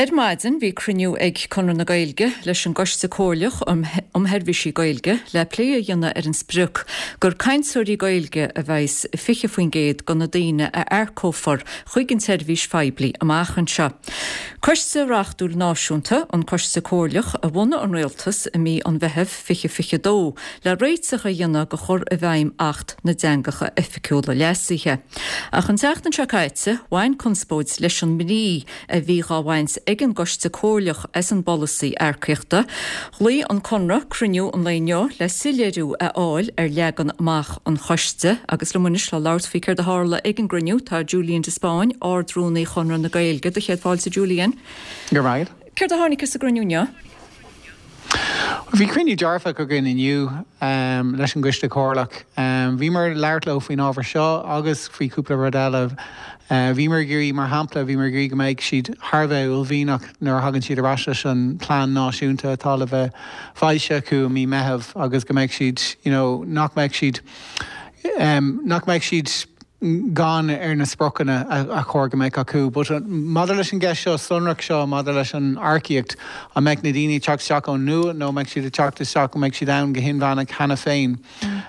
Ar maidin bhí cruinniú ag Conradh na Gaeilge leis an gCoiste Comhairleach um Sheirbhísí Gaeilge le plé a dhéanamh ar an sprioc gur cainteoirí Gaeilge a bheas i 20% de na daoine a earcófar chuig an tseirbhís phoiblí amach anseo. Coiste reachtúil náisiúnta, an Coiste Comhairleach, a bhunaigh an Rialtas i mí an Mheithimh 2022 le réiteach a dhéanamh do chur i bhfeidhm Acht na dTeangacha Oifigiúla Leasaithe. Ach an tseachtain seo caite, bhain conspóid leis an mbrí a bhí dhá bhaint ag an gCoiste Comhairleach as an bpolasaí earcaíochta. Ghlaoigh an Conradh cruinniú an lae inniu le soiléiriú a fháil ar leagan amach an choiste agus liom anois le labhairt faoi céard a tharla ag an gcruinniú tá Julian de Spáinn, Ard-Rúnaí Chonradh na Gaeilge. Do chéad fáilte, Julian. Go raibh maith agat. Céard a tháinig as an gcruinniú inniu? Bhí cruinniú dearfach againn inniu leis an gCoiste Comhairleach. Bhíomar ag labhairt leo faoin ábhar seo agus faoi chúpla rud eile. Bhíomar ag iarraidh, mar shampla, bhíomar ag iarraidh go mbeidh siad thar a bheith uaillmhianach nuair a thagann siad ar ais leis an plean náisiúnta atá le bheith foilsithe acu i mí Meitheamh agus go mbeidh siad, you know, nach mbeidh siad, nach mbeidh siad, gann ar na spriocanna a chóir go mbeadh acu. But maidir leis an gceist seo sonrach seo maidir leis an earcaíocht, an mbeidh na daoine ag teacht isteach ón nua nó an mbeidh siad ag teacht isteach, an mbeidh siad ann go hinmheánach cheana féin?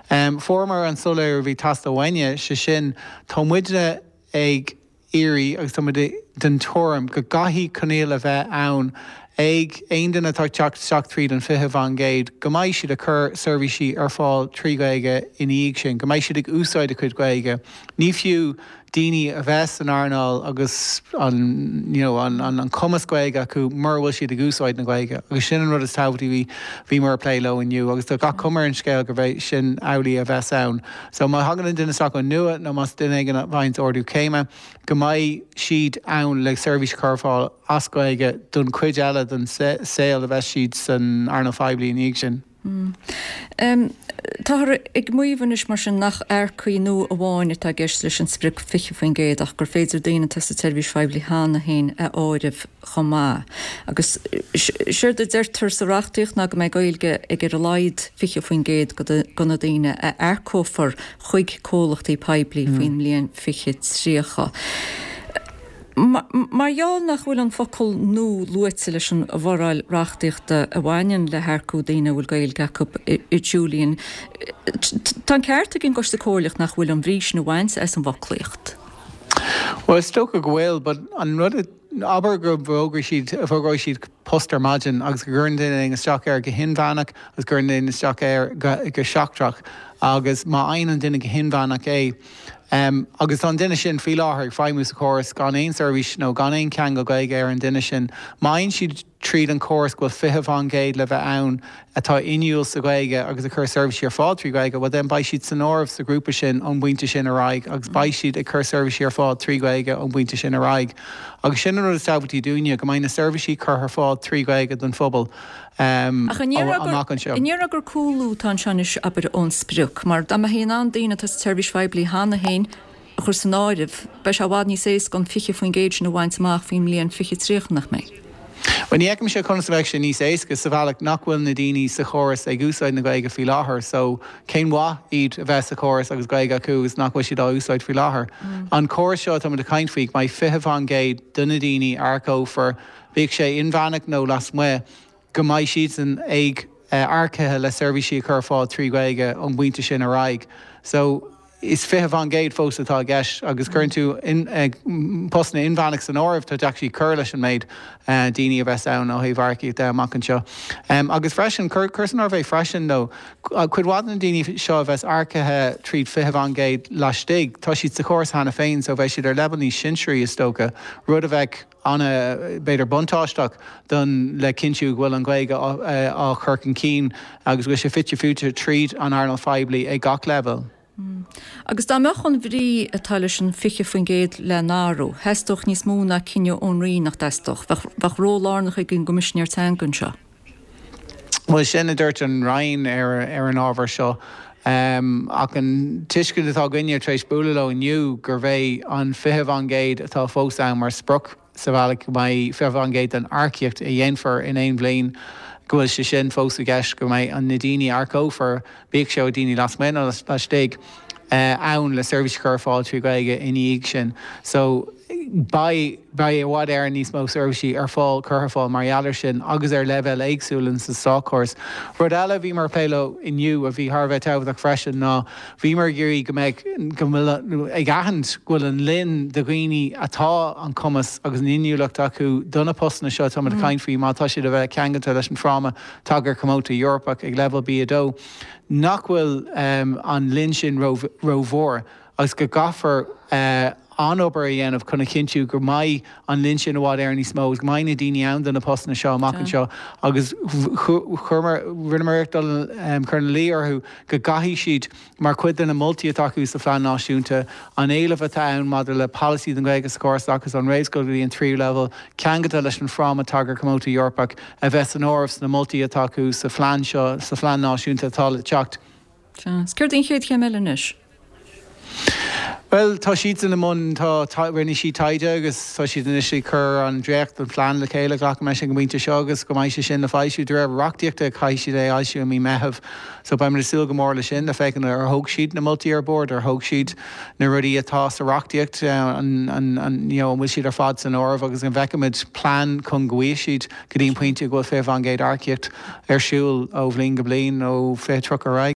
Fuaireamar an soiléiriú a bhí ag teastáil uainne, sé sin, tá muidne ag iarraidh agus tá muid den tuairim go gcaithfidh coinníoll a bheith ann ag aon duine atá ag teacht isteach tríd an 20% go mbeidh siad ag cur seirbhísí ar fáil trí Ghaeilge ina dhiaidh sin, go mbeidh siad ag úsáid a cuid Gaeilge. Ní fiú daoine a bheith san earnáil agus an you know an an cumas Gaeilge acu mura bhfuil siad ag úsáid na Gaeilge agus sin an rud is tábhachtaí a bhí bhíomar ag plé leo inniu agus tá gach cuma ar an scéal gurb é sin amhlaidh a bheas ann. So má thagann an duine isteach ón nua nó más duine éigin a bhain ardú céime, go mbeidh siad ann le seirbhís a chur ar fáil as Gaeilge don chuid eile den saol a bheas siad san earnáil phoiblí ina dhiaidh sin. Táthar ag maíomh anois mar sin nach earcaigh nua amháin atá i gceist leis an sprioc 20% ach gur féidir daoine atá sa tseirbhís phoiblí cheana féin a áireamh chomh maith. Agus séard a deirtear sa reachtaíocht ná go mbeidh Gaeilge ag ar a laghad 20% de na daoine a earcófar chuig comhlachtaí poiblí faoin mbliain 2030. Mar gheall nach bhfuil an focal 'nua' luaite leis an bhforáil reachtaíochta a bhaineann le hearcú daoine a bhfuil Gaeilge acu, a Julian, tá an ceart ag an gCoiste Comhairleach nach bhfuil an bhrí sin a bhaint as an bhfoclaíocht. Bhuel, is dócha go bhfuil, but an rud a, abair go bhfógróidh siad, fógróidh siad post ar maidin agus go gcuireann duine éigin isteach air go hinmheánach agus go gcuireann duine isteach air go, go seachtrach agus má fhaigheann an duine go hinmheánach é, agus tá an duine sin faoi láthair ag feidhmiú sa chóras gan aon seirbhís nó gan aon cheangal Gaeilge ar an duine sin, má fhaigheann siad tríd an chóras go bhfuil 20% le bheith ann atá inniúil sa Ghaeilge agus ag cur seirbhísí ar fáil trí Ghaeilge, bhuel then beidh siad san áireamh sa ghrúpa sin ón bpointe sin ar aghaidh agus beidh siad ag cur seirbhísí ar fáil trí Ghaeilge ón bpointe sin ar aghaidh. Agus sin an rud is tábhachtaí dúinne, go mbeidh na seirbhísí curtha ar fáil trí Ghaeilge don phobal Ach an amach anseo. An ndéarfá gur cúlú atá anseo anois, abair, ón sprioc? Mar dá mbeifí in ann daoine atá sa tseirbhís phoiblí cheana féin a chur san áireamh, beidh sé i bhfad níos éasca an 20% sin a bhaint amach faoin mbliain 2030, nach mbeidh? Bhuel, ní fheicimse conas a bheadh sé níos éasca sa bhealach nach bhfuil na daoine sa chóras ag úsáid na Gaeilge faoi láthair so cén mhaith iad a bheith sa chóras agus Gaeilge acu agus nach bhfuil siad á úsáid faoi láthair. An córas seo atá muid ag caint faoi, go mbeidh 20% de na daoine a earcófar, bíodh sé inmheánach nó lasmuigh, go mbeidh siadsan ag earcaithe le seirbhísí a chur ar fáil trí Ghaeilge ón bpointe sin ar aghaidh. So, is 20% fós atá i gceist agus cuireann tú postanna inmheánach san áireamh, tá tú actually ag cur leis an méid daoine a bheas ann ó thaobh earcaíocht de amach anseo. Agus freisin, cuir san áireamh é freisin though, cuid mhaith de na daoine seo a bheas earcaithe tríd 20% laistigh, tá siad sa chóras cheana féin so beidh siad ar leibhéal níos sinsearaí is dócha, rud a bheadh ana, b'fhéidir buntáisteach don le cinntiú go bhfuil an Ghaeilge á chur chun cinn agus go bhfuil sé fite fuaite tríd an earnáil phoiblí ag gach leibhéal. Agus dá mbeadh an bhrí atá leis an 20% le n-athrú, theastódh níos mó ná cinneadh ón Roinn, nach dteastódh? Bheadh ról lárnach ag an gCoimisinéir Teanga anseo. Bhuel, sin a dúirt an Roinn ar an ábhar seo. Ach an tuiscint atá againne tar éis bualadh leo inniu gurb é an 20% atá fós ann mar sprioc sa bhealach go mbeidh 20% den earcaíocht a dhéanfar in aon bhliain, go bhfuil sé sin fós i gceist, go mbeidh na daoine a earcófar, bíodh sé ó daoine lasmuigh nó laistigh, ann le seirbhís a chur ar fáil trí Ghaeilge ina dhiaidh sin. So. Beidh, beidh i bhfad Éireann níos mó seirbhísí ar fáil, curtha ar fáil mar gheall air sin agus ar leibhéal éagsúil in sa státchóras. Rud eile a bhíomar ag plé leo inniu a bhí thar a bheith tábhachtach freisin ná bhíomar ag iarraidh go mbeadh, go bhfuil, ag aithint go bhfuil an lion de dhaoine atá an cumas agus an inniúlacht acu do na postanna seo atáimid ag caint faoi má tá siad a bheith ceangailte leis an fráma Tagartha Comónta Eorpach ag leibhéal B2 nach bhfuil an lion sin rómhór. agus go gcaithfear an-obair a dhéanamh chun a chinntiú go mbeidh an lion sin i bhfad Éireann níos mó agus go mbeidh na daoine ann do na postanna seo amach anseo agus chuireamar, rinneamar iarracht dul cur ina luí orthu go gcaithfidh siad, mar chuid de na moltaí atá acu sa Phlean Náisiúnta, an éileamh atá ann maidir le polasaí don Ghaeilge sa chóras oideachais ón réamhscoil go dtí an tríú leibhéal, ceangailte leis an Fhráma Tagartha Comónta Eorpach, a bheith san áireamh sna moltaí atá acu sa phlean seo, sa Phlean Náisiúnta atá le teacht. Sea. Is céard í an chéad chéim eile anois? Bhuel, tá siadsan i mbun, tá, rinne siad taighde agus tá siad anois ag cur an dréacht den phlean le chéile, glacaim leis ag an bpointe seo agus go mbeidh sé sin le foilsiú. De réir reachtaíochta caithfidh siad é a fhoilsiú i mí Meitheamh so beimid ag súil go mór leis sin le féachaint ar thóg siad na moltaí ar bord, ar thóg siad na rudaí atá sa reachtaíocht, an, an, an, you know, an bhfuil siad ar fad san áireamh agus an bhfeicfimid plean chun go bhfaighidh siad go dtí an pointe go bhfuil 20% earcaíocht ar siúl ó bhliain go bliain ó 2030 ar aghaidh.